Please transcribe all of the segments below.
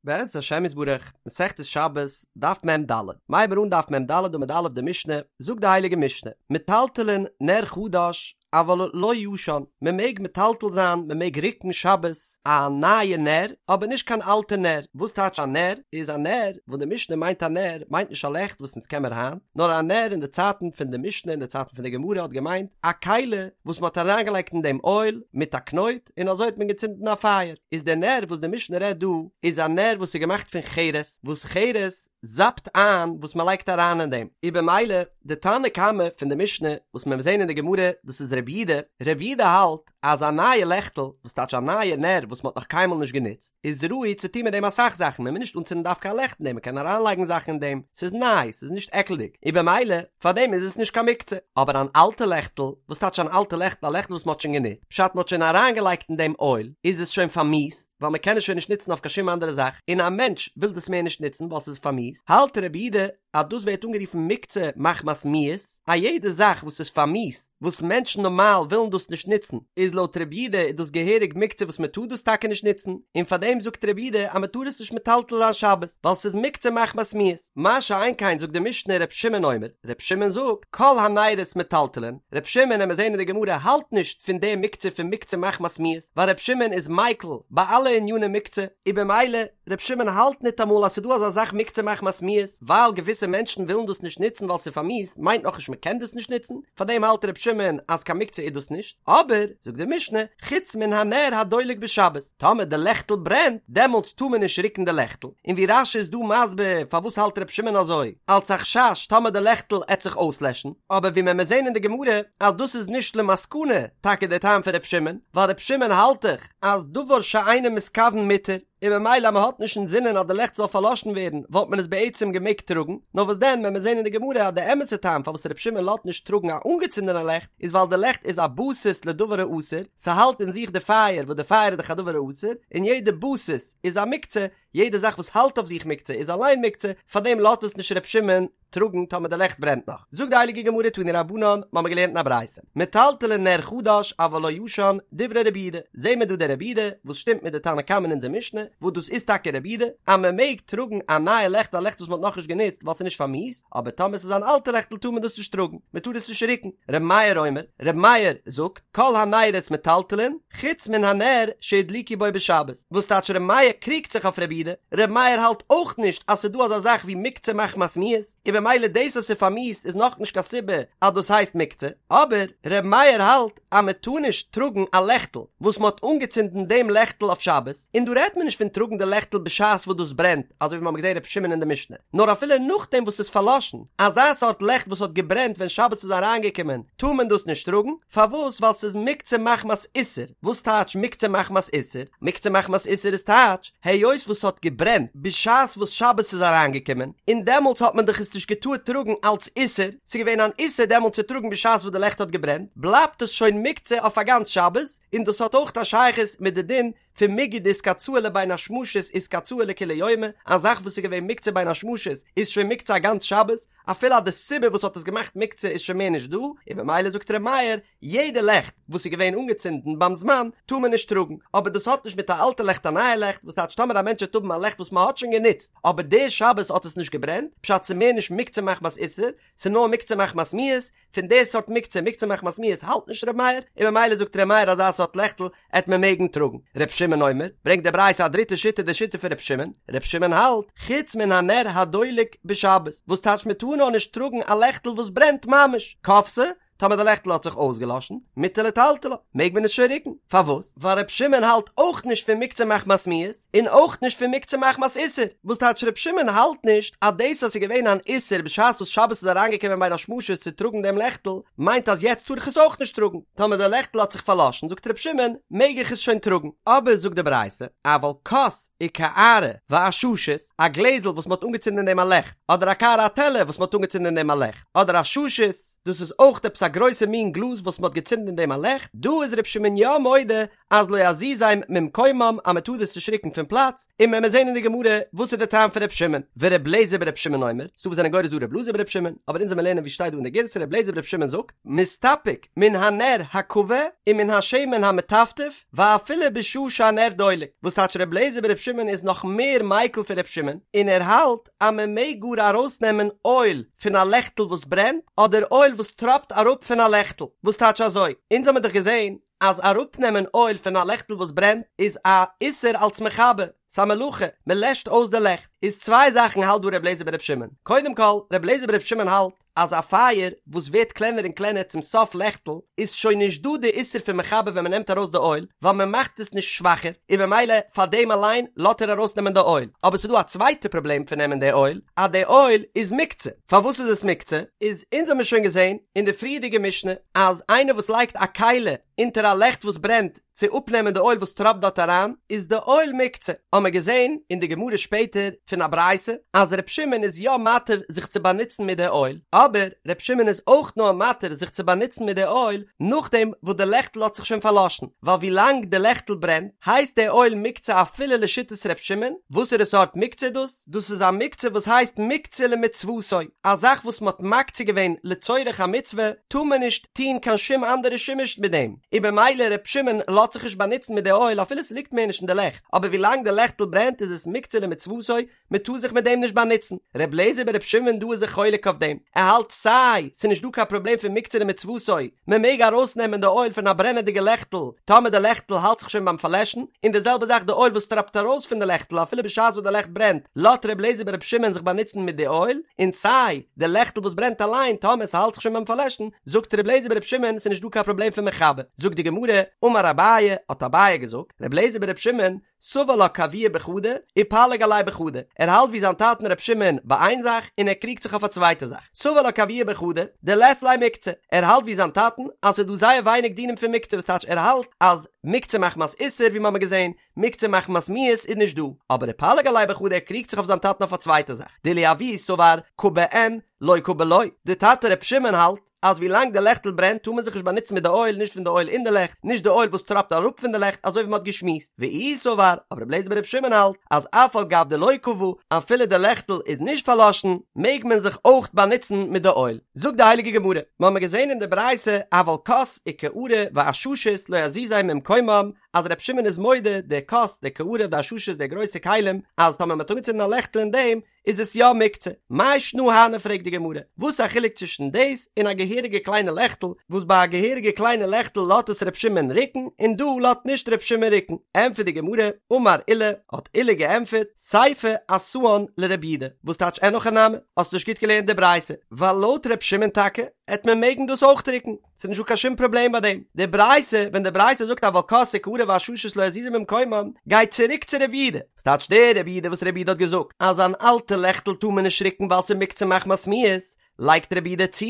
בעזרת השם יתברך, מסכת שבת, דף מ"ד. מ'הייבן מיר אן דף מ"ד עמוד א' די משנה, זאגט די הייליגע משנה, מטלטלין נר חדש אבל לא ישן, מען מעג מטלטל זיין, מען מעג רוקן שבת א נייע נר, אבער נישט קיין אלטע נר. וואס טייטש א נר? איז א נר, וואס די משנה מיינט א נר, מיינט נישט א לעכט וואס אונז קען מיר היינט, נאר א נר אין די צייטן פון די משנה אין די צייטן פון די גמרא האט געמיינט א כלי וואס מען האט אריינגעלייגט אין דעם אויל מיט א קנויט, און אזוי האט מען געצינדן א פייער, איז דער נר וואס די משנה רעדט דא איז א נר וואס איז געמאכט פון חרס, וואס חרס זאפט איין וואס מען לייגט אריין אין דעם, איז במילא די תנא קמא פון די משנה וואס מען וועט זען אין די גמרא דאס איז רבי יהודה, רבי יהודה האלט אז א נייע לעכטל, וואס טייטש א נייע נר וואס מען האט נאך קיינמאל נישט גענוצט, איז ראוי צו טון מיט דעם אסאך זאכן, מען מוז נישט אנצינדן דווקא א לעכט אין דעם, מען קען אריינלייגן זאכן אין דעם, ס'איז ניי, ס'איז נישט עקלדיג, און במילא פאר דעם איז עס נישט קיין מוקצה. אבער אן אלטע לעכטל, וואס טייטש אן אלטע לעכטל? א לעכטל וואס מ'האט שוין גענוצט, פשט מ'האט שוין אריינגעלייגט אין דעם אויל, איז עס שוין פארמיאוסט, ווייל מ'קען עס שוין נישט נוצן אויף קיין שום אנדערע זאך, און א מענטש וויל דאס מער נישט נוצן ווייל ס'איז פארמיאוסט, האלט רבי יהודה אז דאס ווערט אנגערופן מוקצה מחמת מיאוס, א יעדע זאך וואס איז פארמיאוסט, וואס מענטשן נארמאל ווילן דאס נישט נוצן, איז לויט רבי יהודה איז דאס געהעריג מוקצה וואס מ'טאר דאס טאקע נישט נוצן, און פארדעם זאגט רבי יהודה אז מ'טאר עס נישט מטלטל זיין שבת, ווייל ס'איז מוקצה מחמת מיאוס. מה שאין כן זאגט די משנה ר' שמעון אומר, ר' שמעון זאגט, כל הנרות מטלטלין, ר' שמעון עמיר זעהן אין די גמרא האלט נישט פון די מוקצה פון מוקצה מחמת מיאוס, ווייל ר' שמעון איז מיקל ביי אלע עניני מוקצה, און במילא ר' שמעון האלט ניטאמאל אז ס'דא אזא זאך מוקצה מחמת מיאוס, ווייל געוויסע מענטשן ווילן דאס נישט נוצן ווייל ס'איז פארמיאוסט מיינט נאכנישט מ'קען דאס נישט נוצן, פארדעם האלט ר' שמעון אז קיין מוקצה איז דאס נישט, אבער, זאגט די משנה, חוץ מן הנר הדולק בשבת, טאמער די לעכטל ברענט, דעמאלטס טאר מען נישט רוקן די לעכטל, און ווי רש"י איז דא מסביר פארוואס האלט ר' שמעון אזוי, אלץ א חשש טאמער די לעכטל עט זיך אויסלעשן, אבער ווי מען מיר זעהן אין די גמרא אז דאס איז נישט למסקנה טאקע די טעם פון ר' שמעון, ווייל ר' שמעון האלט דאך אז דבר שאינו מתכוון מותר, און ממילא אז מען האט נישט אינזינען אז די לעכט זאל פארלאשן ווערן וואלט מען עס בעצם געמעגט טראגן, נאר וואס דען ווען מיר זעהן אין די גמרא אז די אמת'ע טעם פארוואס ר' שמעון לאזט נישט טראגן א אנגעצינדענע לעכט איז ווייל די לעכט איז א בסיס לדבר האסור, ס'האלט אין זיך די פייער וואס די פייער איז דאך א דבר האסור, און יעדע בסיס איז א מוקצה, יעדע זאך וואס האלט אויף זיך מוקצה איז אליין מוקצה, פארדעם לאזט עס נישט ר' שמעון טראגן טאמער די לעכט ברענט נאך. זאגט די הייליגע גמרא תנו רבנן, מ'האמיר געלערנט אין א ברייתא, מטלטלין נר חדש אבל לא ישן, דברי רבי יהודה, זעהן מיר דא די רבי יהודה וואס שטימט מיט די תנא קמא אין אונזער משנה, וואס דאס איז טאקע רבי יהודה, אז מען מעג טראגן א נייע לעכט א לעכט וואס מען האט נאכנישט גענוצט ווייל ס'איז נישט פארמיאוסט, אבער טאמער ס'איז אן אלטע לעכטל טאר מען דאס נישט טראגן, מען טאר עס נישט רוקן. רבי מאיר אומר, רבי מאיר זאגט, כל הנרות מטלטלין, חוץ מן הנר שהדליקו בו בשבת. וואס טייטש ר' מאיר קריגט זיך אויף ר' יהודה? ר' מאיר האלט אויך נישט אז ס'איז דא אזא זאך ווי מוקצה מחמת מיאוס, און במילא דאס אז ס'איז פארמיאוסט איז נאכנישט קיין סיבה אז דאס הייסט מוקצה, אבער ר' מאיר האלט אז מען טאר נישט טראגן א לעכטל וואס מען האט אנגעצינדן דעם לעכטל אויף שבת, און דא רעדט מען נישט פון טראגן די לעכטל בשעת וואס דאס ברענט, אזוי ווי מיר האבן געזען ר' שמעון אין די משנה, נאר אפילו נאכדעם וואס ס'איז פארלאשן, אזא סארט לעכט וואס האט געברענט ווען שבת איז אריינגעקומען, טאר מען דאס נישט טראגן, פארוואס? ווייל ס'איז מוקצה מחמת איסור. וואס טייטש מוקצה מחמת איסור? מוקצה מחמת איסור איז טייטש, היות וואס ס'האט געברענט בשעת וואס שבת איז אריינגעקומען, און דעמאלטס האט מען דאך עס נישט געטארט טראגן אלץ איסור, ס'איז געווען אן איסור דעמאלטס צו טראגן בשעת וואס די לעכט האט געברענט, בלייבט עס שוין מוקצה אויף א גאנץ שבת, און דאס האט אויך א שייכות מיט די דין פון מיגו דאיתקצאי לבין השמשות איתקצאי לכולי יומא, א זאך וואס איז געווען מוקצה בין השמשות איז שוין מוקצה א גאנץ שבת, אפילו אז די סיבה וואס האט עס געמאכט מוקצה איז שוין מער נישט דא, און במילא זאגט ר' מאיר, יעדע לעכט וואס איז געווען אנגעצינדן ביים זמן טאר מען נישט טראגן, אבער דאס האט נישט מיט א אלטע לעכט א נייע לעכט, וואס טייטש טאמער א מענטש וועט האבן א לעכט וואס מען האט שוין גענוצט אבער די שבת האט עס נישט געברענט, פשט ס'איז מער נישט מוקצה מחמת איסור, ס'איז נאר מוקצה מחמת מיאוס, פון די סארט מוקצה, מוקצה מחמת מיאוס האלט נישט ר' מאיר, און ממילא זאגט ר' מאיר אזא סארט לעכטל עט מען מעגן טראגן. ר' שמעון אומר, ברענגט די ברייתא א דריטע שיטה די שיטה פון ר' שמעון, ר' שמעון האלט, חוץ מן הנר הדולק בשבת, וואס טייטש מען טאר נאר נישט טראגן א לעכטל וואס ברענט ממש, כבתה, טאמער די לעכטל האט זיך אויסגעלאשן, מותר לטלטלה, מעג מען עס שוין רוקן, פארוואס? ווייל ר' שמעון האלט אויך נישט פון מוקצה מחמת מיאוס, און אויך נישט פון מוקצה מחמת איסור, וואס טייטש ר' שמעון האלט נישט אז דאס אז ס'איז געווען אן איסור בשעת וואס שבת איז אריינגעקומען בין השמשות צו טראגן דעם לעכטל, מיינט אז יעצט טאר איך עס אויך נישט טראגן, טאמער די לעכטל האט זיך פארלאשן זאגט ר' שמעון מעג איך עס שוין טראגן, אבער זאגט די ברייתא, אבל כוס וקערה ועששית, א גלעזל וואס מ'האט אנגעצינדן אין דעם א לעכט, אדער א קערה א טעלער וואס מ'האט אנגעצינדן אין דעם א לעכט, אדער עששית, דאס איז אויך עפעס א. גרויסע מין גלאז וואס מ'האט געצינדן אין דעם א לעכט, דא איז ר' שמעון יא מודה אז לא יזיזם ממקומם אז מ'טאר דאס נישט ריקן פון פלאץ, און מען וועט זען אין די גמרא וואס איז די טעם פון ר' שמעון, ור' לעזער בר' שמעון אומר, ס'דא וואס זענען גורס דא ר' אלעזר בר' שמעון, אבער אונז וועלן לערנען ווי שטייט דא אין די גירסא ר' לעזער בר' שמעון זאגט, מסתפק מן הנר הכבה ומן השמן המטפטף ואפילו בשעה שהנר דולק, וואס טייטש ר' לעזער בר' שמעון איז נאך מער מיקל פון ר' שמעון, און ער האלט אז מען מעג גאר ארויסנעמען אויל פון א לעכטל וואס ברענט, אדער אויל וואס טראפט אראפ פון א לעכטל, וואס טייטש אזוי, אונז האמיר דאך געזען אז אראפנעמען אויל פון א לעכטל וואס ברענט איז א איסור אלס מכבה, ס'א מלאכה, מען לעשט אויס די לעכט, איז צוויי זאכן האלט דא ר' לעזער בר' שמעון, קודם כל, ר' לעזער בר' שמעון האלט אז א פייער וואס ווערט קלענער און קלענער צום סוף לעכטל איז שוין נישט דא די איסור פון מכבה ווען מען נעמט ארויס די אויל, ווייל מען מאכט עס נישט שוואכער, און במילא פאר דעם אליין לאט ער ארויסנעמען די אויל, אבער ס'איז דא א צווייטע פראבלעם פון נעמען די אויל, אז די אויל איז מוקצה. פארוואס איז עס מוקצה? איז אונז האמיר שוין געזען אין די פריערדיגע משנה אז איינער וואס לייגט א כלי אונטער א לעכט וואס ברענט צו אפנעמען די אויל וואס טראפט דארט אריין איז די אויל מוקצה, האמיר געזען אין די גמרא שפעטער פון א ברייתא אז ר' שמעון איז יא מתיר זיך צו באנוצן מיט די אויל, אבער ר' שמעון איז אויך נאר מתיר זיך צו באנוצן מיט די אויל נאכדעם וואס די לעכטל האט זיך שוין פארלאשן, ווייל ווילאנג די לעכטל ברענט הייסט די אויל מוקצה אפילו לשיטת ר' שמעון, וואסערע סארט מוקצה איז דאס? דאס איז א מוקצה וואס הייסט מוקצה למצוותו, א זאך וואס מ'האט מקצה געווען לצורך א מצוה, טאר מען נישט טון קיין שום אנדערע שימוש מיט דעם, און במילא ר' שמעון לאזט זיך נישט באנוצן מיט די אויל אפילו ס'ליגט מער נישט אין די לעכט, אבער ווילאנג די לעכטל ברענט איז עס מוקצה למצוותו, מ'טאר זיך מיט דעם נישט באנוצן. ר' לעזער בר' שמעון דא איז זיך חולק אויף דעם, ער האלט סיי ס'נישט דא קיין פראבלעם פון מוקצה למצוותו, מען מעג ארויסנעמען די אויל פון א ברענעדיגע לעכטל טאמער די לעכטל האלט זיך שוין ביים פארלעשן, און די זעלבע זאך די אויל וואס טראפט ארויס פון די לעכטל אפילו בשעת וואס די לעכט ברענט, לאט ר' לעזער בר' שמעון זיך באנוצן מיט די אויל, און סיי די לעכטל וואס ברענט אליין טאמער ס'האלט זיך שוין ביים פארלעשן, זאגט ר' לעזער בר' שמעון ס'איז נישט דא קיין פראבלעם פון מכבה. זאגט די גמרא, אמר אביי, האט אביי געזאגט, ר' לעזער בר' שמעון, סבר לה כאבוה בחדא, ופליג עליה בחדא, ער האלט ווי זיין טאטן ר' שמעון ביי איין זאך און ער קריגט זיך אויף א צווייטע זאך, סבר לה כאבוה בחדא, דלית ליה מוקצה, ער האלט ווי זיין טאטן אז ס'איז דא זייער ווייניג דינים פון מוקצה וואס טייטש ער האלט אז מוקצה מחמת איסור ווי מ'האמיר געזען, מוקצה מחמת מיאוס איז נישט דא, אבער ופליג עליה בחדא ער קריגט זיך אויף זיין טאטן אויף א צווייטע זאך, דאילו אבוה סבר כבה אין, לא כבה לא, די טאטע ר' שמעון האלט אז ווי לאנג די לעכטל ברענט טאר מען זיך נישט באנוצן מיט די אויל, נישט פון די אויל אין די לעכט, נישט די אויל וואס טראפט אראפ פון די לעכט, אזוי ווי מען האט געשמועסט. ואיהו סבר, אבער רבי אליעזר ברבי שמעון האלט, אז אף על גב דלא כבה, אפילו די לעכטל איז נישט פארלאשן, מעג מען זיך אויך באנוצן מיט די אויל. זאגט די הייליגע גמרא, מיר האבן געזען אין די ברייתא, אבל כוס וקערה ועששית לא יזיזם ממקומם, אז רבי שמעון איז מודה, די כוס, די קערה, די עששית, די גרויסע כלים, אז טאמער מען האט אנגעצינדן א לעכטל אין דעם, איז עס יא מוקצה? מאי שנא הני פרעגט די גמרא, וואס איז א חילוק צווישן דאס און א געהעריגע קליינע לעכטל, וואס ביי א געהעריגע קליינע לעכטל לאט עס ר' שמעון ריקן און דא לאט נישט ר' שמעון ריקן? ענטפערט די גמרא, אמר עולא, האט עולא געענטפערט, סיפא אתאן לרבי יהודה, וואס טייטש אין הכי נמי, האסט נישט גוט געלערנט די ברייתא, ווייל לויט ר' שמעון טאקע, העט מען מעגן דאס אויך ריקן. ס'איז נישטא קיין שום פראבלעם ביי דעם. די ברייתא, ווען די ברייתא זאגט אבל כוס וקערה ועששית לא יזיזו ממקומם, גייט צוריק צו רבי יהודה. וואס טייטש דער רבי יהודה וואס רבי יהודה האט געזאגט אז אן אלטע לעכטל טאר מען נישט ריקן ווייל ס'איז מוקצה מחמת מיאוס, לייגט רבי יהודה צו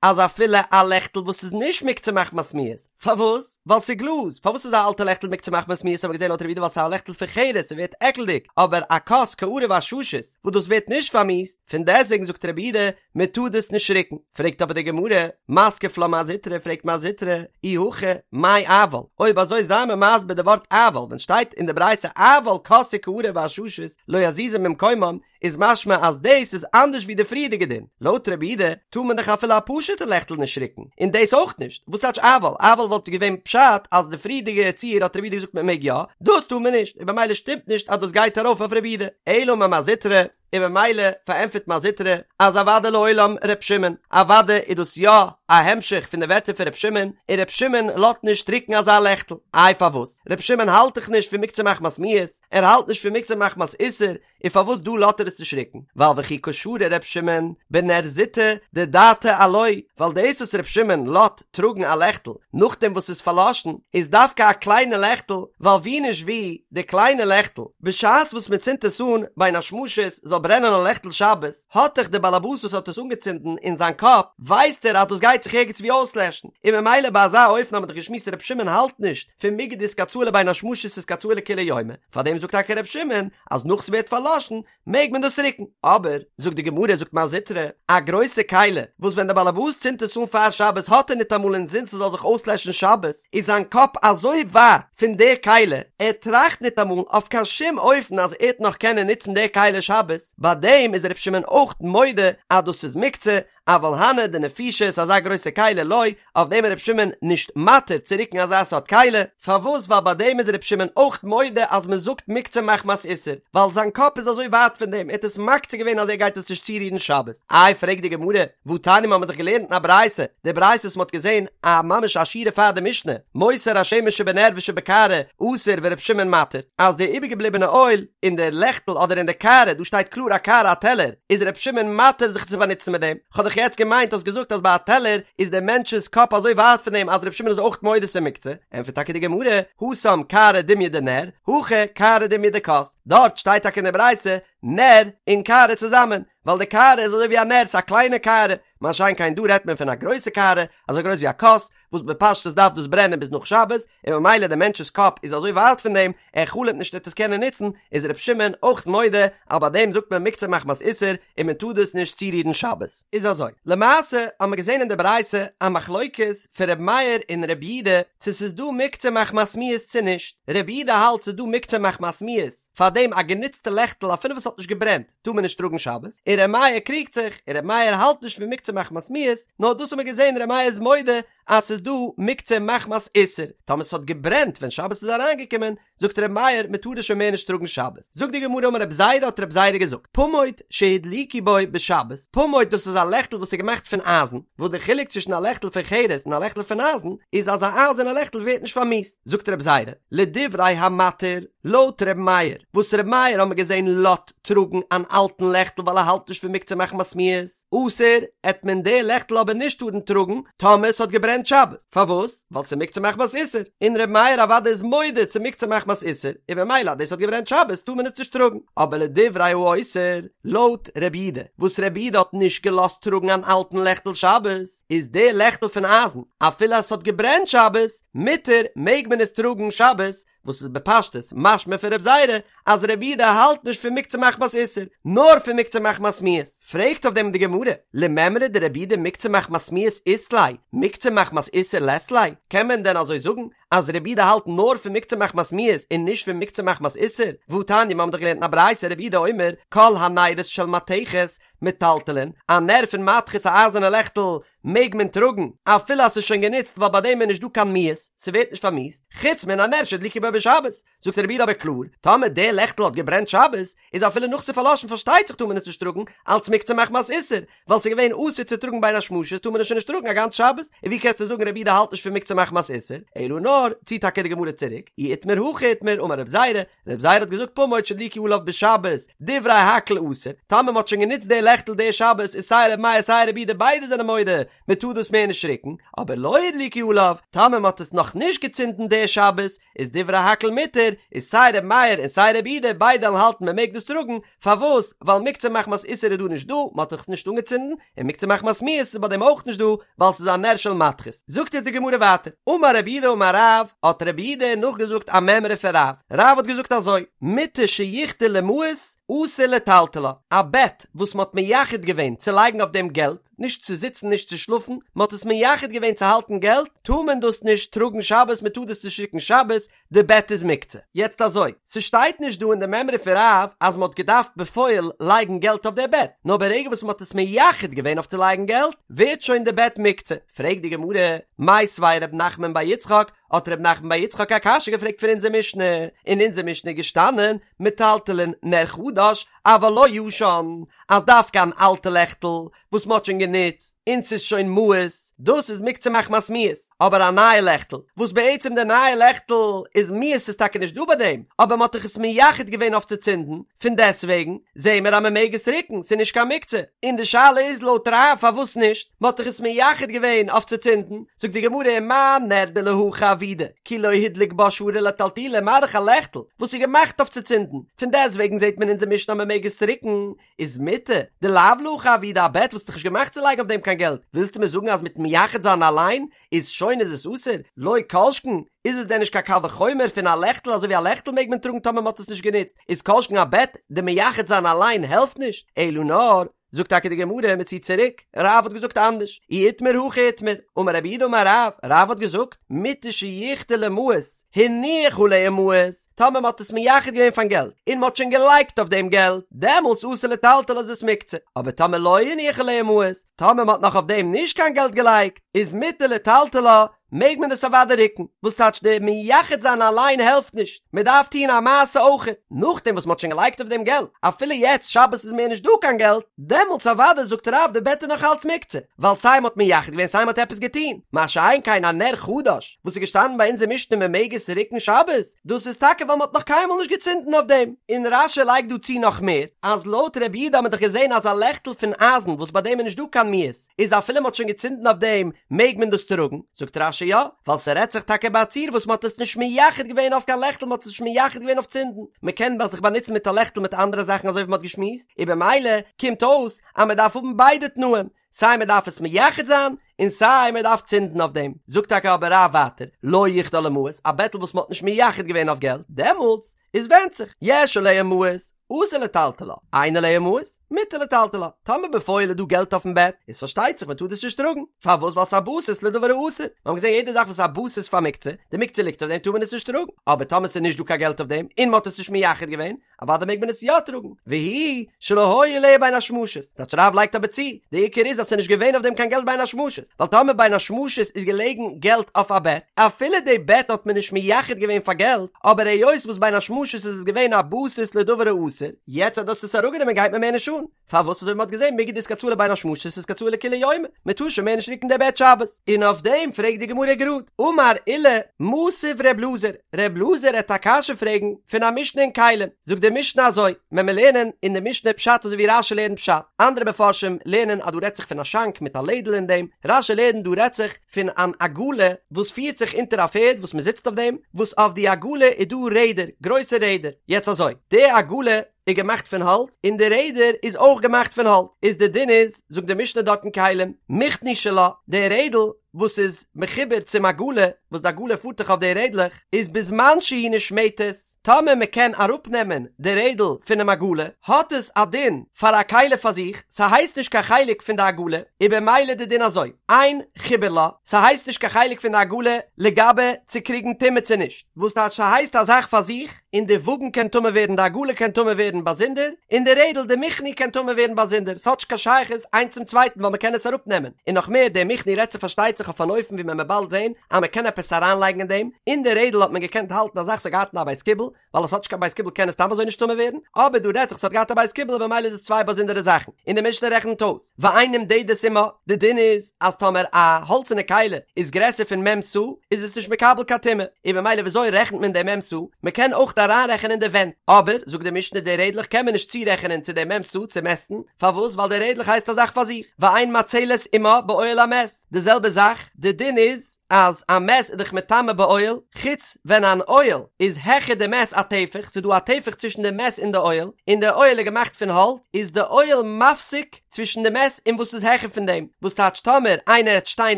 אז אפילו א לעכטל וואס איז נישט מוקצה מחמת מיאוס. פארוואס? ווייל ס'איז גלאז. פארוואס איז א אלטע לעכטל מוקצה מחמת מיאוס האבן מיר געזען לויט רבי יהודה ווייל ס'איז א לעכטל פון חרס ס'ווערט עקלדיג, אבער א כוס קערה ועששית וואס דאס ווערט נישט פארמיאוסט, פון דעסוועגן זאגט רבי יהודה מען טאר דאס נישט ריקן, פרעגט אבער די גמרא, מתקיף לה מר זוטרא, פרעגט מר זוטרא, אי הכי, מאי אבל, אויב אזוי זיי מיר מסביר די ווארט אבל, ווען שטייט אין די ברייתא אבל כוס וקערה ועששית לא יזיזו ממקומם, איז משמע אז דאס איז אנדערש ווי די פריערדיגע דין, לויט רבי יהודה טאר מען דאך אפילו א פשוטע לעכטל נישט ריקן, און דאס אויך נישט, וואס טייטש אבל, אבל וואלט געווען פשט אז די פריערדיגע ציור האט רבי יהודה געזאגט מען מעג יא, דאס טאר מען נישט, און במילא שטימט נישט אז דאס גייט ארויף אויף רבי יהודה, אלא אמר מר זוטרא, און במילא פארענטפערט מר זוטרא אז אוודאי לעולם ר' שמעון, אוודאי איז דאס יא א המשך פון די ווערטער פון ר' שמעון, און ר' שמעון לאזט נישט ריקן אזא לעכטל, איי פארוואס? ר' שמעון האלט דאך נישט פון מוקצה מחמת מיאוס, ער האלט נישט פון מוקצה מחמת איסור, און פארוואס דא לאזט ער עס נישט ריקן? ווייל וכי קא שרי ר' שמעון בנר זוטא דדעתיה עילויה, ווייל דאס וואס ר' שמעון לאזט טראגן א לעכטל נאכדעם וואס ס'איז פארלאשן איז דווקא א קליינע לעכטל, ווייל ווי נישט ווי, די קליינע לעכטל, בשעת וואס מען צינדט עס אן בין השמשות זאל. ס'זאל ברענען א לעכטל שבת, האט דאך דער באלעבאס וואס האט עס אנגעצינדן אין זיין קאפ, ווייסט ער אז דאס גייט זיך ערגעץ ווי אויסלעשן, און ממילא ביי אזא אופן האט מען דאך געשמועסט ר' שמעון האלט נישט פון מיגו דאיתקצאי לבין השמשות איתקצאי לכולי יומא, פארדעם זאגט טאקע ר' שמעון אז נאך ס'ווערט פארלאשן מעג מען דאס רוקן, אבער, זאגט די גמרא, זאגט מר זוטרא, א גרויסע כלי, וואס ווען דער באלעבאס צינדט עס אן פאר שבת האט ער ניטאמאל אינזין ס'זאל זיך אויסלעשן שבת, איז זיין קאפ אזוי ווייט פון די כלי, ער טראכט ניטאמאל אויף קיין שום אופן אז ער וועט נאך קענען נוצן די כלי שבת, ביי דעם איז ר' שמעון אויך מודה אז דאס איז מוקצה, אבל הני דנפישי ס'איז אזא גרויסע כלי לא, אויף דעם איז ר' שמעון נישט מתיר צו רוקן אזא סארט כלי, פארוואס ווייל ביי דעם איז ר' שמעון אויך מודה אז מען זאגט מוקצה מחמת איסור, ווייל זיין קאפ איז אזוי ווייט פון דעם, ער האט עס מקצה געווען אז ער גייט עס נישט צורירן שבת. איי פרעגט די גמרא, והתניא מ'האמיר דאך געלערנט אין א ברייתא, די ברייתא וואס מ'האט געזען א ממש א שורה פאר די משנה, מותר השמן שבנר ושבקערה אסור ור' שמעון מתיר, אז די איבערגעבליבענע אויל אין די לעכטל אדער אין די קערה, דא שטייט קלאר א קערה א טעלער, איז ר' שמעון מתיר זיך צו באנוצן מיט דעם, כ'האב דאך יעצט געמיינט האסט געזאגט אז ביי א טעלער איז דער מענטש'ס קאפ אזוי ווייט פון דעם אז ר' שמעון איז אויך מודה ס'איז מוקצה, ענטפערט טאקע די גמרא, התם קערה דומיא דנר, הכא קערה דומיא דכוס, דארט שטייט טאקע אין די ברייתא נר און קערה צוזאמען, ווייל די קערה איז אזוי ווי א נר, ס'איז א קליינע קערה, מה שאין כן דא רעדט מען פון א גרויסע קערה, אזוי גרויס ווי א כוס, וואס בפשטות דארף דאס ברענען ביז נאך שבת, און ממילא דער מענטש'ס קאפ איז אזוי ווייט פון דעם, ער חלומ'ט נישט ער וועט עס קענען נוצן, איז ר' שמעון אויך מודה אז ביי דעם זאגט מען מוקצה מחמת איסור און מען טאר דאס נישט צורירן שבת. איז אזוי, למעשה האט מען געזען אין די ברייתא א מחלוקת פון ר' מאיר און ר' יודא צו ס'איז דא מוקצה מחמת מיאוס צו נישט, ר' יודא האלט ס'איז דא מוקצה מחמת מיאוס, פארדעם א גענוצטע לעכטל אפילו וואס האט נישט געברענט טאר מען נישט טראגן שבת, און ר' מאיר קריגט זיך, און ר' מאיר האלט נישט פון מוקצה מחמת מיאוס, נאר דאס האט מען געזען ר' מאיר איז מודה אז ס'איז דא מוקצה מחמת איסור, טאמער ס'האט געברענט ווען שבת איז אריינגעקומען, זאגט ר' מאיר מען טאר עס שוין מער נישט טראגן שבת. זאגט די גמרא אמר רב זירא האט רב זירא געזאגט, פמוט שהדליקו בו בשבת, פמוט דאס איז א לעכטל וואס איז געמאכט פון אייזן, וואס די חילוק צווישן א לעכטל פון חרס און א לעכטל פון אייזן איז אז א אייזערנע לעכטל ווערט נישט פארמיאוסט, זאגט רב זירא, לדברי המתיר, לויט ר' מאיר, וואס ר' מאיר האמיר געזען לאזט טראגן אן אלטן לעכטל ווייל ער האלט נישט פון מוקצה מחמת מיאוס, אסור, עט מען די לעכטל אבער נישט טארן טראגן טאמער ס'האט געברענט שבת, פארוואס? ווייל ס'איז מוקצה מחמת איסור, און ר' מאיר אוודאי איז מודה צו מוקצה מחמת איסור, און ממילא אז דאס האט געברענט שבת טאר מען עס נישט טראגן, אבער לדברי האוסר, לויט ר' יודא, וואס ר' יודא האט נישט געלאזט טראגן אן אלטן לעכטל שבת, איז די לעכטל פון אייזן, אפילו אז ס'האט געברענט שבת, מותר, מעג מען עס טראגן שבת, וואס איז בפשטות משמע פון רב זירא אז רבי יודא האלט נישט פון מוקצה מחמת איסור, נאר פון מוקצה מחמת מיאוס. פרעגט אויף דעם די גמרא, למימרא דרבי יודא מוקצה מחמת מיאוס אית ליה, מוקצה מחמת איסור לית ליה, קען מען דען אזוי זאגן אז רבי יודא האלט נאר פון מוקצה מחמת מיאוס און נישט פון מוקצה מחמת איסור? והתניא מיר האבן דאך געלערנט אין א ברייתא רבי יודא אומר כל הנרות של מתכת מטלטלין, א נר פון מתכת א אייזערנע לעכטל מעג מען טראגן אפילו אז ס'איז שוין גענוצט ווייל ביי דעם איז נישט דא קיין מיאוס, ס'ווערט נישט פארמיאוסט, חוץ מן הנר שהדליקו בו בשבת, זאגט רבי יודא אבער קלאר, טאמער די לעכטל האט געברענט שבת, איז אפילו נאך ס'איז פארלאשן פארשטייט זיך טאר מען עס נישט טראגן, אלץ מוקצה מחמת איסור, ווייל ס'איז געווען אסור צו טראגן בין השמשות טאר מען עס שוין נישט טראגן א גאנץ שבת, און ווי קענסטו זאגן רבי יודא האלט נישט פון מוקצה מחמת איסור, אלא נאר, ציט טאקע די גמרא צוריק, אי איתמר הכי איתמר אמר רב זירא, רב זירא האט געזאגט פמוט שהדליקו עליו בשבת, דברי הכל אסור, טאמער מ'האט שוין גענוצט די לעכטל די שבת איז סיי ר' מאיר סיי רבי יודא ביידע זענען מודה מ'טאר דאס מער נישט ריקן, אבער לא הדליקו עליו, טאמער מ'האט עס נאך נישט געצינדן די שבת, איז דברי הכל מותר, איז סיי ר' מאיר און סיי רבי יודא ביידע וועלן האלטן מ'מעג דאס טראגן, פארוואס? ווייל מוקצה מחמת איסור איז דא נישט דא, מ'האט עס נישט אנגעצינדן, און מוקצה מחמת מיאוס איז ביי דעם אויך נישט דא, ווייל ס'איז א נר של מתכת. זאגט יעצט די גמרא ווייטער, אמר רב יהודה אמר רב, האט רב יהודה נאכגעזאגט א מימרא פון רב, רב האט געזאגט אזוי, מיטה שיחדה למעות אסור לטלטלה, א בעט וואס מ'האט מייחד געווען צו לייגן אויף דעם געלט, נישט צו זיצן נישט צו שלאפן, מ'האט עס מייחד געווען צו האלטן געלט, טאר מען דאס נישט טראגן שבת, מ'טאר דאס נישט רוקן שבת, די בעט איז מוקצה. יעצט אזוי, ס'שטייט נישט דא אין די מימרא פון רב אז מ'האט געדארפט בפועל לייגן געלט אויף די בעט, נאר ברגע וואס מ'האט עס מייחד געווען אויף צו לייגן געלט, ווערט שוין די בעט מוקצה. פרעגט די גמרא, מיתיבי ר' נחמן בר יצחק, האט ר' נחמן בר יצחק א קשיא געפרעגט פון אונזער משנה, אין אונזער משנה איז געשטאנען, מטלטלין נר חדש, אבל לא ישן, אז דווקא אן אלטע לעכטל וואס מ'האט שוין גענוצט און ס'איז שוין מיאוס, דאס איז מוקצה מחמת מיאוס, אבער א נייע לעכטל, וואס בעצם די נייע לעכטל איז מיאוס איז טאקע נישט דא ביי דעם, אבער מ'האט דאך עס מייחד געווען אויף צו צינדן, פון דעסוועגן זעהן מיר אז מ'מעג עס רוקן, ס'איז נישט קיין מוקצה, און די שאלה איז לויט רב פארוואס נישט, מ'האט דאך עס מייחד געווען אויף צו צינדן, זאגט די גמרא ומה נר דלהכי עבידא, כי לא הדליק בה שרי לטלטולי, מה דאך א לעכטל וואס איז געמאכט אויף צו צינדן, פון דעסוועגן זעהט מען אונזער. אונזער משנה אז מען מעג עס רוקן, איז מיטה דלאו להכי עבידא א בעט וואס איז דאך נישט געמאכט צו לייגן אויף דעם קיין געלט, ווילסטו מיר זאגן אז מיטן מייחד זיין אליין איז שוין איז עס אסור? לא כל שכן, איז עס דען נישט קיין קל וחומר פון א לעכטל אזוי ווי א לעכטל מעג מען טראגן טאמער מען האט עס נישט גענוצט, איז כל שכן א בעט, די מייחד זיין אליין העלפט נישט, אלא נאר, זאגט טאקע די גמרא מען ציט צוריק, רב האט געזאגט אנדערש, אי איתמר הכי איתמר, אמר רב יהודה אמר רב, רב האט געזאגט, מיטה שיחדה למעות, הניח עליה מעות, טאמער מען האט עס מייחד געווען פארן געלט, און מען האט שוין געלייגט אויף דעם געלט, דעמאלטס אסור לטלטלה איז עס מוקצה, אבער טאמער לא הניח עליה מעות, טאמער מען האט נאך אויף דעם נישט קיין געלט געלייגט, איז מותר לטלטלה, מעג מען עס אוודאי רוקן, וואס טייטש די מייחד זיין אליין העלפט נישט, מען דארף טון א מעשה אויכעט, נאכדעם וואס מען האט שוין געלייגט אויף דעם געלט, אפילו יעצט שבת איז מער נישט דא קיין געלט, דעמאלטס אוודאי זאגט רב די בעט איז נאך אלץ מוקצה, ווייל סיי מען האט מייחד געווען סיי מען האט עפעס געטון, מה שאין כן א נר חדש וואס איז געשטאנען ביי אונזער משנה מען מעג עס רוקן שבת, דאס איז טאקע ווייל מען האט נאך קיינמאל נישט געצינדן אויף דעם. און רש"י לייגט דא צו נאך מער, אז לויט רבי יהודה האט מען דאך געזען אז א לעכטל פון אייזן וואס ביי דעם איז נישט דא קיין מיאוס, איז אפילו מ'האט שוין געצינדן אויף דעם מעג מען דאס טראגן? זאגט רש"י יא, ווייל ס'רעדט זיך טאקע ביי א ציור וואס מ'האט עס נישט מייחד געווען אויף קיין לעכטל מ'האט עס נישט מייחד געווען אויף צינדן, מ'קען זיך באנוצן מיט א לעכטל מיט אנדערע זאכן אזוי ווי מ'האט געשמועסט, און במילא קומט אויס אז מ'דארף האבן ביידע תנאים, סיי מ'דארף עס מייחד זיין און סיי מ'דארף צינדן אויף דעם. זאגט טאקע אבער רב ווייטער, לא יחדה למעות, א בעטל וואס מ'האט נישט מייחד געווען אויף געלט, דעמאלטס איז ווענדט זיך, יש עליה מעות, אסור לטלטלה, אין עליה מעות, מותר לטלטלה. טאמער בפועל איז דא געלט אויפן בעט, איז פארשטייט זיך מען טאר דאס נישט טראגן. פארוואס? ווייל ס'איז א בסיס לדבר האסור. מיר האבן געזען יעדע זאך וואס איז א בסיס פאר מוקצה, די מוקצה ליגט אויף דעם טאר מען עס נישט טראגן. אבער טאמער ס'איז נישט דא קיין געלט אויף דעם, און מ'האט עס נישט מייחד געווען, אוודאי מעג מען עס יא טראגן. והוא שלא היו עליה בין השמשות. טייטש רב לייגט אבער צו, די עיקר איז אז ס'איז נישט געווען אויף דעם קיין געלט בין השמשות. ווייל טאמער בין השמשות איז געלעגן געלט אויף א בעט, אפילו די בעט האט מען נישט מייחד געווען פאר געלט, אבער היות וואס בין השמשות איז עס געווען א בסיס לדבר האסור, יעצט אז דו האסט עס אראפגענומען גייט מיר מער נישט אן, פארוואס אזוי ווי מ'האט געזען מיגו דאיתקצאי לבין השמשות איתקצאי לכולי יומא, מ'טאר שוין מער נישט רוקן די בעט שבת. און אויף דעם פרעגט די גמרא גראד, אמר עולא, מתיב ר' אלעזר, ר' אלעזר העט א קשיא פרעגן פון א משנה אין כלים, זאגט די משנה אזוי, ווען מיר לערנען אין די משנה פשט אזוי ווי רש"י לערנט פשט, אנדערע מפרשים לערנען אז דא רעדט זיך פון א שאנק מיט א לעדל אין דעם, רש"י לערנט דא רעדט זיך פון אן עגלה וואס פירט זיך אונטער א פערד וואס מען זיצט אויף דעם, וואס אויף די עגלה איז דא רעדער, גרויסע רעדער, יעצט אזוי, די עגלה איז געמאכט פון האלץ, און די רעדער איז אויך געמאכט פון האלץ, איז די דין איז, זאגט די משנה דארט אין כלים, מכני שלה, די רעדל וואס איז מחובר צום עגלה, וואס די עגלה פארט דאך אויף די רעדלעך, איז בזמן שהיא נשמטת, טאמער מען קען אראפנעמען די רעדל פונעם עגלה, האט עס א דין פאר א כלי פאר זיך, ס'הייסט נישט קיין חלק פון די עגלה, איז במילא די דין אזוי, אין חיבור לה, ס'הייסט נישט קיין חלק פון די עגלה לגבי צו קריגן טומאה צו נישט, וואס טייטש ס'הייסט א זאך פאר זיך, און די וואגן קען טמא ווערן, די עגלה קען טמא ווערן באזונדער, און די רעדל, די מכני קען טמא ווערן באזונדער, ס'האט נישט קיין שייכות איינס צום צווייטן ווייל מ'קען עס אראפנעמען, און נאך מער, די מכני רעדט זיך פארשטייט זיך אויף אן אופן ווי מען וועט באלד זען אז מ'קען עפעס אריינלייגן אין דעם, אין די רעדל האט מען געקענט האלטן א זאך ס'האט געהאט א בית קיבול, ווייל עס האט נישט קיין בית קיבול קען עס סתם אזוי נישט טמא ווערן, אבער דא רעדט זיך ס'האט געהאט א בית קיבול און במילא איז עס צוויי באזונדערע זאכן, און די משנה רעכנט אויס, ואין נמדדת עמה, די דין איז אז טאמער א האלצענע כלי איז גרעסער פון מ' סאה איז עס נישט מקבל קיין טומאה, און במילא וויאזוי רעכנט מען די מ' סאה, מען קען אויך אריינרעכענען די ווענט, אבער זאגט די משנה די רעדלעך קען מען נישט צורעכענען צו די מ' סאה צו מעסטן, פארוואס ווייל די רעדלעך הייסט א זאך פאר זיך, ואין מצלת עמה באוהל המת, די זעלבע זאך, די דין איז אז א מת איז דאך מטמא באוהל, חוץ ווען אן אוהל איז העכער די מת א טפח, ס'איז דא א טפח צווישן די מת און די אוהל, און די אוהל איז געמאכט פון האלץ, איז די אוהל מפסיק צווישן די מת און וואס איז העכער פון דעם, וואס טייטש טאמער איינער העט שטיין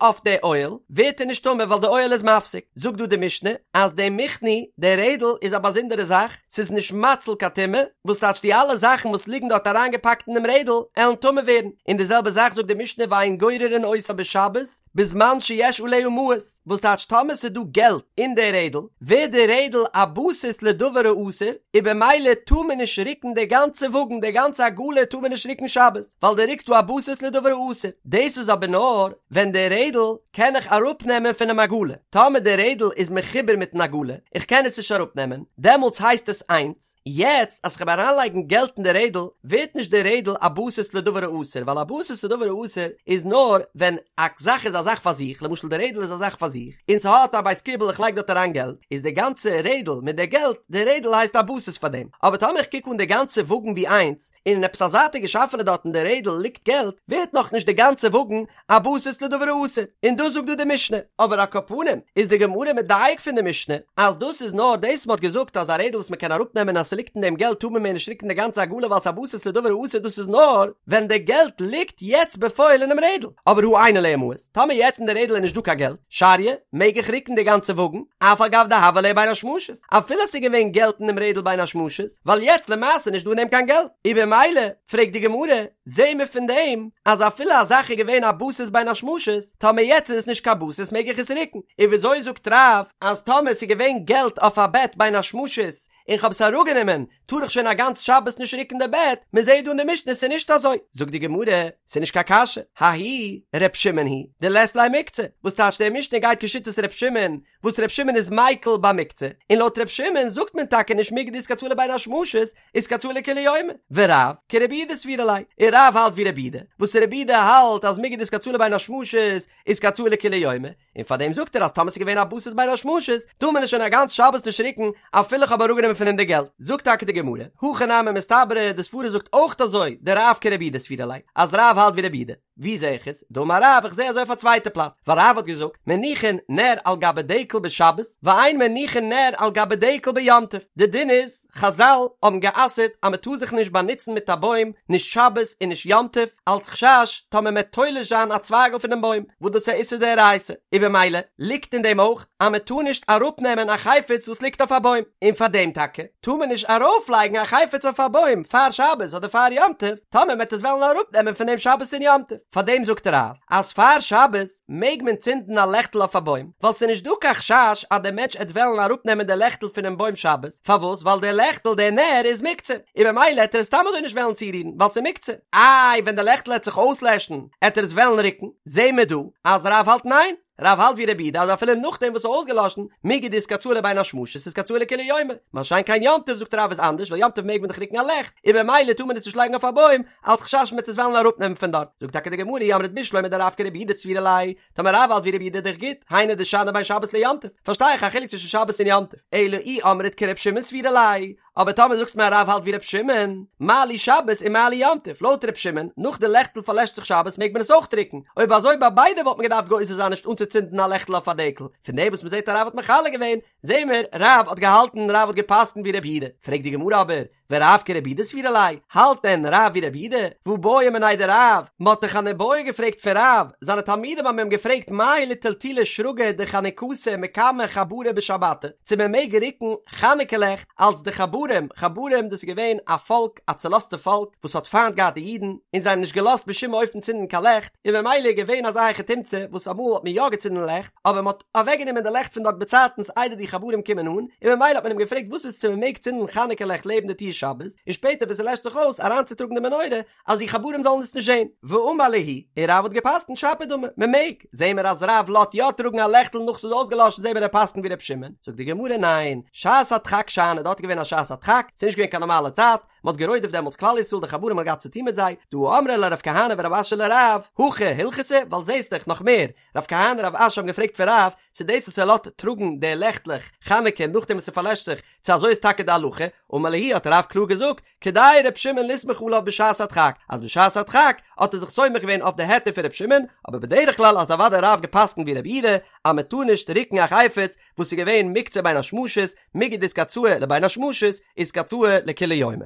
אויף די אוהל, ווערט ער נישט טמא ווייל די אוהל איז מפסיק. זאגט דא די משנה אז די מכני, די רעדל, איז א באזונדערע זאך, ס'איז נישט מציל קיין טומאה, וואס טייטש די אלע זאכן וואס ליגן דארט אריינגעפאקט אין דעם רעדל, עלן טמא ווערן, און די זעלבע זאך זאגט די משנה ואין גוררין אותה בשבת, בזמן שיש עליה מעות, וואס טייטש טאמער ס'איז דא געלט אין די רעדל, ווערט די רעדל א בסיס לדבר האסור, און במילא טאר מען נישט רוקן די גאנצע וואגן, די גאנצע עגלה טאר מען נישט רוקן שבת, ווייל דו רוקסט דא א בסיס לדבר האסור. דאס איז אבער נאר ווען די רעדל קען איך אראפנעמען פונעם עגלה, טאמער די רעדל איז מחובר מיטן עגלה, איך קען עס נישט אראפנעמען, דעמאלטס הייסט עס איינס, יעצט אז כ'וועל אריינלייגן געלט אין די רעדל, ווערט נישט די רעדל א בסיס לדבר האסור, ווייל א בסיס לדבר האסור איז נאר ווען א זאך איז א זאך פאר זיך, למשל די רעדל איז א זאך. זאך פאר זיך, און ס'האט א בית קיבול איך לייג דארט אריין געלט, איז די גאנצע רעדל מיט די געלט, די רעדל הייסט א בסיס פאר דעם, אבער טאמער איך קוק אן די גאנצע וואגן ווי איינס, און אין עפעס א זייטיגע שאפעלע דארט אין די רעדל ליגט געלט, ווערט נאכנישט די גאנצע וואגן א בסיס לדבר האסור, און דאס זאגט דא די משנה, אבער על כל פנים איז די גמרא מדייק פון די משנה אז דאס איז נאר דאס מ'האט געזאגט אז א רעדל וואס מ'קען אראפנעמען אז ס'ליגט אין דעם געלט טאר מען מער נישט ריקן די גאנצע עגלה ווייל ס'איז א בסיס לדבר האסור דאס איז נאר ווען די געלט ליגט יעצט בפועל אינעם רעדל, אבער הא אין עליה מעות, טאמער יעצט אין די רעדל איז נישט דא קיין געלט, שריא, מעג איך ריקן די גאנצע וואגן, אף על גב דהוה עליה בין השמשות, אפילו ס'איז געווען געלט אינעם רעדל בין השמשות, ווייל יעצט למעשה נישט דא אין דעם קיין געלט, און במילא פרעגט די גמרא, זעהן מיר פון דעם אז אפילו א זאך איז געווען א בסיס בין השמשות, טאמער יעצט איז עס נישט קיין בסיס מעג איך עס רוקן, און וויאזוי זאגט רב אז טאמער ס'איז געווען געלט אויף א בעט בין השמשות און כ'האב עס אראפגענומען טאר איך שוין א גאנץ שבת נישט רוקן די בעט, מען זעהט דא אין די משנה ס'איז נישט אזוי, זאגט די גמרא, ס'איז נישט קיין קשיא, ההיא ר' שמעון היא דלית ליה מוקצה, וואס טייטש די משנה גייט כשיטת ר' שמעון, וואס ר' שמעון איז מיקל ביי מוקצה, און לויט ר' שמעון זאגט מען טאקע נישט מיגו דאיתקצאי לבין השמשות, איתקצאי לכולי יומא, ורב כרבי יהודה סבירא ליה, און רב האלט ווי רבי יהודה, וואס רבי יהודה האלט אז מיגו דאיתקצאי לבין השמשות איתקצאי לכולי יומא, און פאר דעם זאגט ער אז טאמער ס'איז געווען א בסיס בין השמשות, טאר מען עס שוין א גאנץ שבת נישט רוקן אפילו כ'האב אראפגענומען פון אים די געלט. זאגט טאקע די גמרא, הכי נמי מסתברא, די סברא זאגט אויך אזוי, דרב כרבי יהודה סבירא ליה, אז רב האלט ווי רבי יהודה. ווי זע איך עס? דאמר רב, איך זע אזוי אויף א צווייטע פלאץ, ווייל רב האט געזאגט, מניחין נר על גבי דקל בשבת, ואין מניחין נר על גבי דקל ביום טוב. די דין איז, חזל האבן גע'אסר'ט אז מען טאר זיך נישט באנוצן מיט א בוים נישט שבת און נישט יום טוב, אלץ חשש טאמער מען תולש זיין א צווייגל פונעם בוים, וואס דאס איז א איסור דאורייתא, און במילא ליגט אין דעם אויך אז מען טאר נישט אראפנעמען א חפץ וואס ליגט אויף א בוים, און פאר דעם טאקע טאר מען נישט ארויפלייגן א חפץ אויף א בוים פאר שבת אדער פאר יום טוב, טאמער מען וועט עס וועלן אראפנעמען פון דעם שבת און יום טוב, פאר דעם זאגט רב אז פאר שבת מעג מען צינדן א לעכטל אויף א בוים, ווייל ס'איז נישט דא קיין חשש אז דער מענטש עט וועלן אראפנעמען די לעכטל פונעם בוים שבת, פארוואס? ווייל דער לעכטל, דער נר, איז מוקצה, און במילא עט ער עס סתם אזוי נישט וועלן צורירן, ווייל ס'איז מוקצה. איי, ווען די לעכטל עט זיך אויסלעשן, עט ער עס וועלן רוקן? זעהן מיר דא אז רב האלט ניין, רב האלט ווי רבי יהודה אז אפילו נאכדעם וואס ס'איז אויסגעלאשן, מיגו דאיתקצאי לבין השמשות איתקצאי לכולי יומא, מה שאין כן יום טוב זאגט רב איז אנדערש ווייל יום טוב מעג מען דאך רוקן א לעכט, און במילא טאר מען עס נישט לייגן אויף א בוים, אלס חשש מ'וועט עס וועלן אראפנעמען פון דארט, זאגט טאקע די גמרא אי אמרת בשלמא דרב כרבי יהודה סבירא ליה, טאמער רב האלט ווי רבי יהודה איז דאך גוט, היינו דשני בין שבת ליום טוב, פארשטיי איך א חילוק צווישן שבת און יום טוב, אלא אי אמרת כר' שמעון סבירא ליה, אבער טאמער זאגסט מיר אז רב האלט ווי ר' שמעון, מה לי שבת און מה לי יום טוב, לויט ר' שמעון, נאך די לעכטל פארלעשט זיך שבת מעג מען עס אויך רוקן, אויב אזוי ביי ביידע וואלט מען געדארפט גוזר זיין נישט אנצוצינדן א לעכטל אויף א דקל, פון דעם וואס מען זעט אז רב האט מחלק געווען, זעהן מיר, רב האט געהאלטן, רב האט גע'פסק'נט ווי רבי יהודה, פרעגט די גמרא אבער, ורב כרבי יהודה סבירא ליה, האלט דען רב ווי רבי יהודה? והא בעו מיניה דרב, מען האט דאך אן איבעיא געפרעגט פון רב, זיינע תלמידים האבן אים געפרעגט מהו לטלטולי שרגא דחנוכתא מקמי חברי בשבתא, צו מען מעג רוקן חנוכה לעכט אלס די חברים, חברים דאס איז געווען א פאלק, א צולאזטע פאלק, וואס האט פיינט געהאט די אידן, און זיי האבן נישט געלאזט בשום אופן צינדן קיין לעכט, און ממילא איז געווען אזא היכי תמצא וואס אמאל האט מען יא געצינדן לעכט, אבער מען האט. אוועקגענומען די לעכט פון דארט באצייטנס איידער די חברים קומען אן, און ממילא האט מען אים געפרעגט וואס איז צו מען מעג צינדן חנוכה לעכט לעבן די טיר שבת, און שפעטער ווען ס'לעשט זיך אויס אריינצוטראגן די מנורה אז די חברים זאלן עס נישט זען. ואמר להו, און רב האט געפסקנט שפיר דמי, מען מעג, זעהן מיר אז רב לאזט יא טראגן א לעכטל נאך ס'איז אויסגעלאשן זעהן מיר ער פסקנט ווי ר' שמעון, זאגט די גמרא ניין, שעת הדחק שאני, דארט איז געווען א שעת הדחק, ס'איז נישט געווען קיין נארמאלע צייט, מען האט גערודפ'ט דעמאלטס כלל ישראל די חברים האט געהאט צוטון מיט זיי, דהא אמרי ליה רב כהנא ורב אשי לרב, הכי הלכתא, ווייל זעהסט דאך נאך מער, רב כהנא רב אשי האבן געפרעגט פון רב צו דאס וואס ער לאזט טראגן די לעכטלעך חנוכה נאכדעם וואס ס'פארלעשט זיך, צו אזוי איז טאקע די הלכה, אמר להו האט רב קלאר געזאגט, כדאי ר' שמעון לסמוך עליו בשעת הדחק, אז בשעת הדחק האט ער זיך סומך געווען אויף די היתר פון ר' שמעון, אבער בדרך כלל האט אוודאי רב גע'פסק'נט ווי ר' יהודה אז מען טאר נישט רוקן א חפץ וואס איז געווען מוקצה בין השמשות, מיגו דאיתקצאי לבין השמשות, איתקצאי לכולי יומא.